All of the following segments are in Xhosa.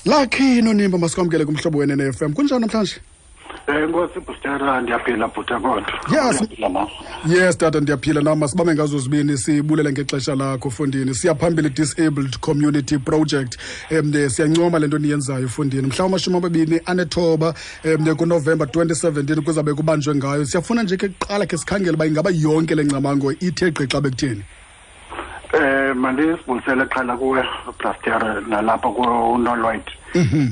Lakhi Nonimba, masikwamkele kumhlobo wenene FM. Kunjani namhlanje? Nkosi Bhutera, ndiyaphila bhuta kodwa. Yes. Ndiyaphila nam. Yes tata, ndiyaphila nam. Masibambe ngazo zibini, sibulele ngexesha lakho fondini. Siya phambili Disabled Community Project. Siyancoma le nto niyenzayo fondini. Mhla wama-29 kuNovemba 2017 kuzabe kubanjwe ngayo. Siyafuna nje ke kuqala ke sikhangele uba ingaba yonke le ngcamango ithe gqi xa bekutheni. Mandisibulisele qala kuwe Brastera nalapha kuNolwide.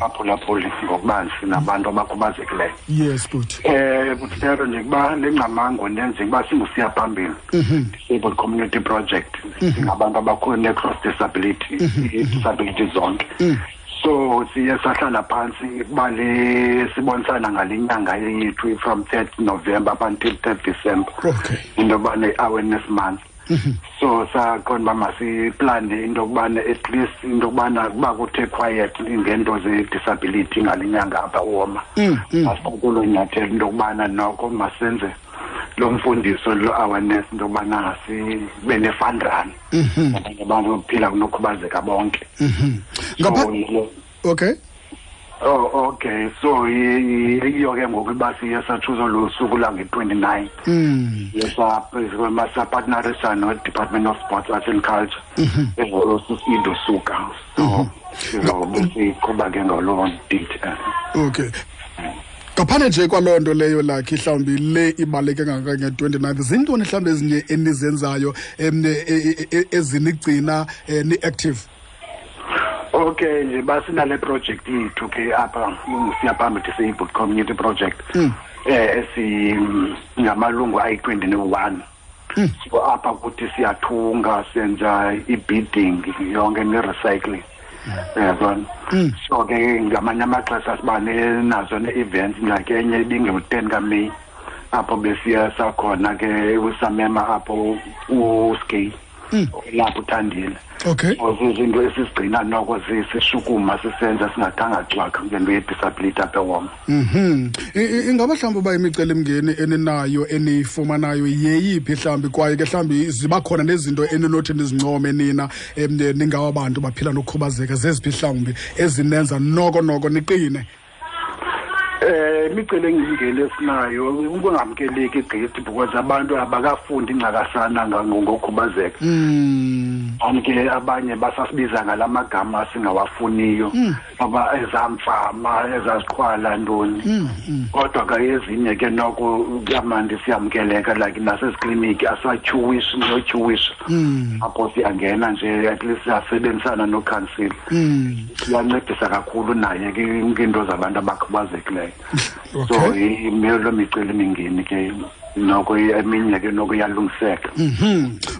Aphulaphuli ngokubanzi nabantu abakhubazekileyo. Yes bhuti. Brastera, nje kuba le ngcamango nenze kuba singusiya phambili. Disabled Community Project. Singabantu abakhona cross disability, disability zonke. So siye sahlala phansi kuba le sibonisana ngale nyanga yethu from 3rd November up until 3rd December. Into yoba ne-awareness month. So saqonda uba masiplane into yokubana at least into yokubana kuba kuthe quiet ngeento ze-disability ngale nyanga apha uwoma. Masikulo nyathelo into yokubana noko masenze lo mfundiso lo awareness into yokubana sibe ne-fun run. Abanye abantu bokuphila kunokhubazeka bonke. So, Okay. Oh, okay. So iyo ke ngoku uba siye satshuza lo suku lange-29. Sapartnerisa no-Department of Sports, Arts and Culture. Into suka. So sizobe siqhuba ke ngaloo date. Okay. Ngaphandle nje kwaloo nto leyo lakhe mhlawumbi le ibaluleke kangaka nge-29, zintoni mhlawumbi ezinye enizenzayo ezinigcina ni-active? Okay, nje basinale project yethu ke apha siya phambili Disabled Community Project. Esi ngamalungu ayi-21. So apha kuthi siyathunga, senza i-beading yonke ne-recycling. Yabona. So ke ngamanye amaxesha siba nazo ne-events, like enye ibinge-10 kaMeyi apho besiya sakhona ke usamema apho uSkay lapho uthandile. So zizinto esizigcina noko sishukuma sisenza singathanga cwaka ngento ye-disability apha eWoma. Ingaba mhlawumbi uba imicelimngeni eninayo eniyifumanayo yeyiphi mhlawumbi, kwaye ke mhlawumbi ziba khona nezinto eninothi nizincome nina ningawa bantu baphila nokukhubazeka, zeziphi mhlawumbi ezinenza noko noko niqine? Imicelimngeni esinayo ukungamkeleki gqithi because abantu abakafundi incakasana ngokukhubazeka. Ke abanye basasibiza ngalamagama singawafuniyo, aba ezamfama ezaziqhwala ntoni. Kodwa ke ezinye ke noko kuyamandi siyamkeleka, like nasezikliniki asatyhuwishi notyhuwisha. Apho siyangena nje at least siyasebenzisana nokhansila. Siyancedisa kakhulu naye ke ngeento zabantu abakhubazekileyo. So imelo micelimingeni ke noko eminye ke noko iyalungiseka.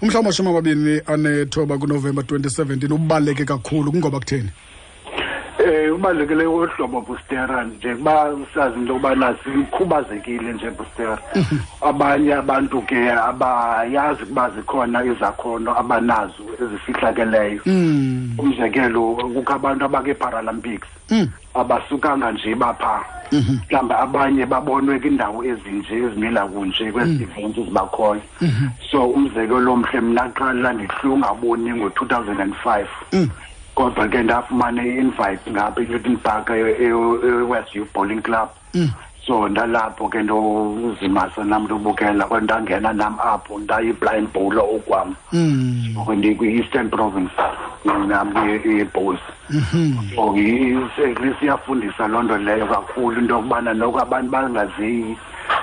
Umhla wama-29 kuNovemba 2017 ubaluleke kakhulu kungoba kutheni? Ubalulekile uhlobo Bustera nje kuba sazi into yokubana sikhubazekile nje Bustera. Abanye abantu ke abayazi ukuba zikhona izakhono abanazo ezifihlakeleyo. Umzekelo, kukho abantu abake-Paralympics abasukanga nje bapha. Mhlawumbi abanye babonwe kwindawo ezinje ezimila kunje kwezi events zibakhoyo. So umzekelo omhle, mna qala ndihlungaboni ngo-2005. Kodwa ke ndafumana i-invite ngapha eNewton Park e-West Youth Bowling Club. So ndalapho ke ndozimasa nam ndobukela, kodwa ndangena nam apho ndayi-blind bowler okwam. Ndikwi-Eastern Province nam i-bowls. So at least iyafundisa loo nto leyo kakhulu into yokubana noko abantu bangaziyi,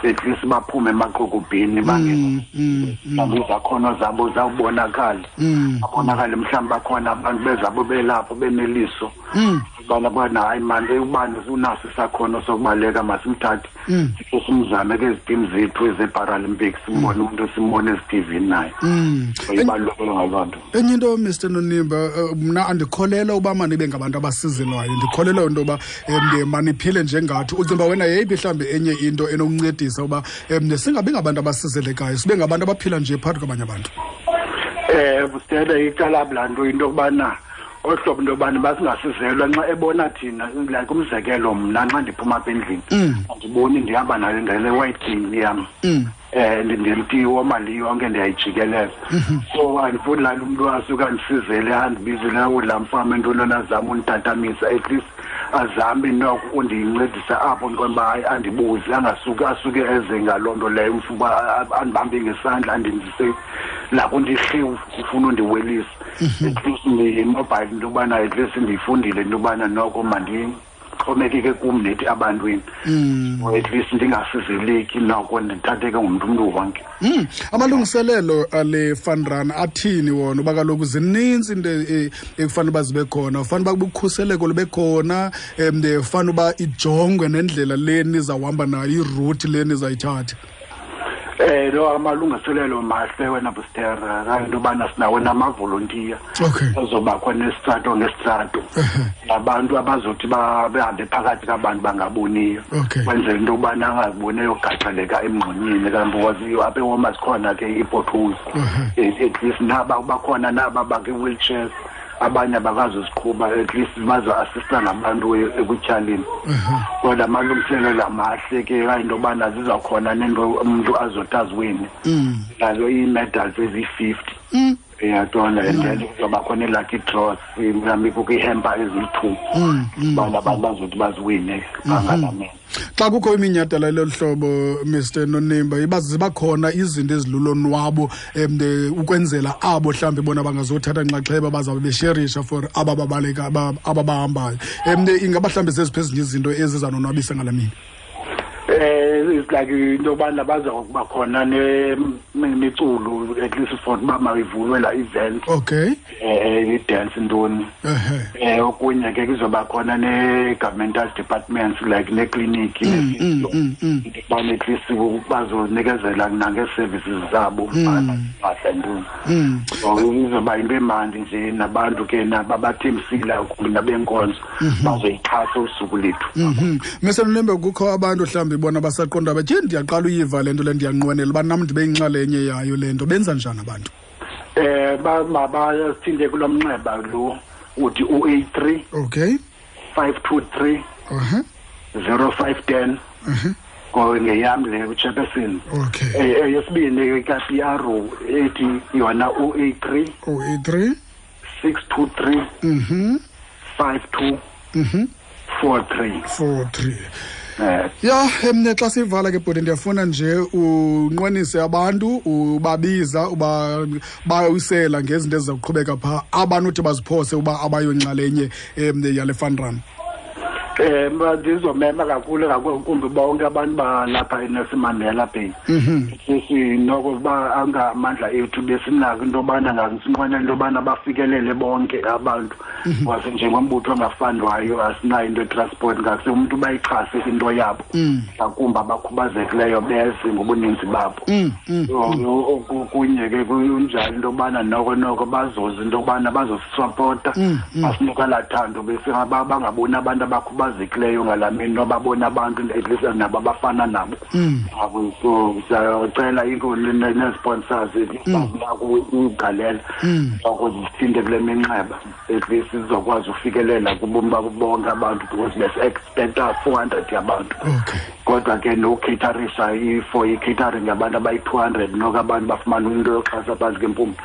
at least baphume emaqokobheni bangene mhlawumbi izakhono zabo zawubonakala. Babonakale mhlawumbi bakhona abantu bezabo belapho beneliso. Ubana bana hayi mani ubani unaso isakhono sokubaleka, masimthathe sikhe simzame kwezi team zethu eze-Paralympics, simbone umuntu simbone ezi-TV naye. So ibalulekile ngaloo nto. Enye into, Mr Nonimba, mna andikholelwa uba manibe ngabantu abasizelwayo, ndikholelwa into yoba maniphile njengathi. Ucinga uba wena yeyiphi mhlawumbi enye into enokuncedisa uba singabi ngabantu abasizelekayo, sibe ngabantu abaphila nje phakathi kwabanye abantu? Bustela, icala laa nto into yokubana Ohlobo into yobana basingasizelwa nxa ebona thina, like umzekelo mna nxa ndiphuma apha endlini andiboni, ndihamba nayo ngale white cane yam, ndimtiwo mali yonke ndiyayijikelela. So andifuni laa nto umntu asuke andisizele, andibizele laa mfama entoni, azame unditatamisa. At least azame noko undincedisa apho, ndiqonda uba hayi, andibuze, angasuke asuke eze ngaloo nto leyo, uba andibambe ngesandla andindise lapho ndihliwu ufuna undiwelisa. At least ndimobile into yobana at least ndiyifundile into yobana noko mandixhomekeke kum nethi abantwini, or at least ndingasizeleki, noko ndithatheke ngumntu umntu wonke. Amalungiselelo ale fun run athini wona? Uba kaloku zininzi into ekufanele uba zibe khona, ufanele uba ukhuseleko lube khona, fanele uba ijongwe nendlela le nizawuhamba nayo, i-route le nizayithatha. Lo amalungiselelo mahle wena Bustera, into yobana sinawo namavolontiya azoba khona esitrato ngesitrato, nabantu abazothi behambe phakathi kabantu bangaboniyo, kwenzela into yobana angaziboni eyogaxeleka emngxunyeni, kanti apha eWalmart zikhona ke ii-potholes. At least naba bakhona naba bakwi-wheelchairs, abanye abakazuziqhuba, at least bazo-assista nabantu ekutyhaleni. Kodwa amalungiselelo amahle ke, into yobana zizawukhona nento umntu azothi aziwine nazo ii-medals eziyi-50, uyaqonda? And then kuzoba khona ii-lucky draws, mhlawumbi kukho ii-hamper eziyi-2, ubana abantu bazothi baziwine bangalamini. Xa kukho iminyhadala lolu hlobo, Mr Nonimba, iba ziba khona izinto ezilulonwabo ukwenzela abo mhlawumbi bona bangazothatha nxaxheba, bazawube besherisha for aba babaleka, aba bahambayo. Ingaba mhlawumbi zeziphi ezinye izinto ezizanonwabisa ngala mini? It's like into yobana baza kuba khona nemiculo, at least for uba mayivulwe la event, i-dance ntoni. Okunye ke kuzoba khona ne-governmental departments, like nekliniki, ubana at least bazonikezela nangee-services zabo mpahla ntoni. So izoba yinto emandi nje, nabantu ke nababathembisile nabenkonzo bazoyixhasa usuku lethu. Mr Nonimba, kukho abantu mhlawumbi bona basaqonda bathi ndiyaqala uyiva le nto le, ndiyanqwenela uba nam ndibe yinxalenye yayo le nto. Benza njani abantu? Bayasithinte kulo mnxeba lo uthi u-83 523 0510, ngeyam le, uchairperson. Eyesibini ka-PR ethi yona u-83 083 623 52 43. 43. Ya, emne xa sivala ke bhuti, ndiyafuna nje unqwenise abantu, ubabiza, uba bawisela ngezinto eziza kuqhubeka phaa, abanothi baziphose uba abayonxalenye yale fun run. Ndizomema kakhulu ngakumbi bonke abantu balapha eNelson Mandela Bay. Sisi noko uba angamandla ethu besinako into yobana ngasinqwenela into yobana bafikelele bonke abantu. Because njengombutho ongafundwayo asinayo into ye-transport, ngase umntu bayixhase into yabo. Ngakumbi abakhubazekileyo beze ngobuninzi babo. So okunye ke kunjalo into yobana noko noko bazoza into yobana bazosisapota, basinika laa thando, bese bangaboni abantu abakhubazekileyo ngalaa mini, nobabona abantu at least nabo abafana nabo. So siyacela nee-sponsors bazinako ugalela noko zisithinte kule minxeba, at least sizokwazi ufikelela kubomi babo bonke abantu, because besi-expecta 400 yabantu. Kodwa ke nokucaterisha for i-catering yabantu abayi-200, noko abantu bafumana into yoxhasa phantsi kempumlo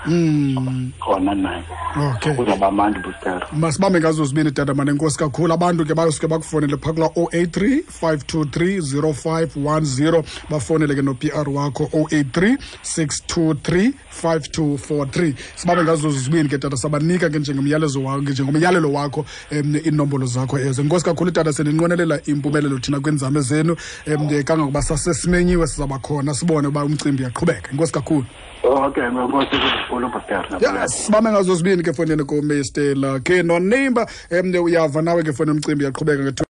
khona nayo. Kuzawuba mandi, Bustera. Masibambe ngazo zibini, tata mane, enkosi kakhulu. Abantu ke basuke bakufonele phaa kulaa 083 523 0510, bafonele ke no-PR wakho 083 623 5243. Sibambe ngazo zibini ke tata, sabanika ke njengomyalezo wakho, njengomyalelo wakho, iinombolo zakho ezo. Enkosi kakhulu tata, sininqwenelela impumelelo thina kwiinzame zenu, kangangokuba sasesimenyiwe sizawuba khona sibone uba umcimbi uyaqhubeka. Enkosi kakhulu. Okay, nkosi kakhulu, Bustera. Yes, sibambe ngazo zibini ke fonini kuMr Lucky Nonimba. Uyava nawe ke foni, umcimbi uyaqhubeka nge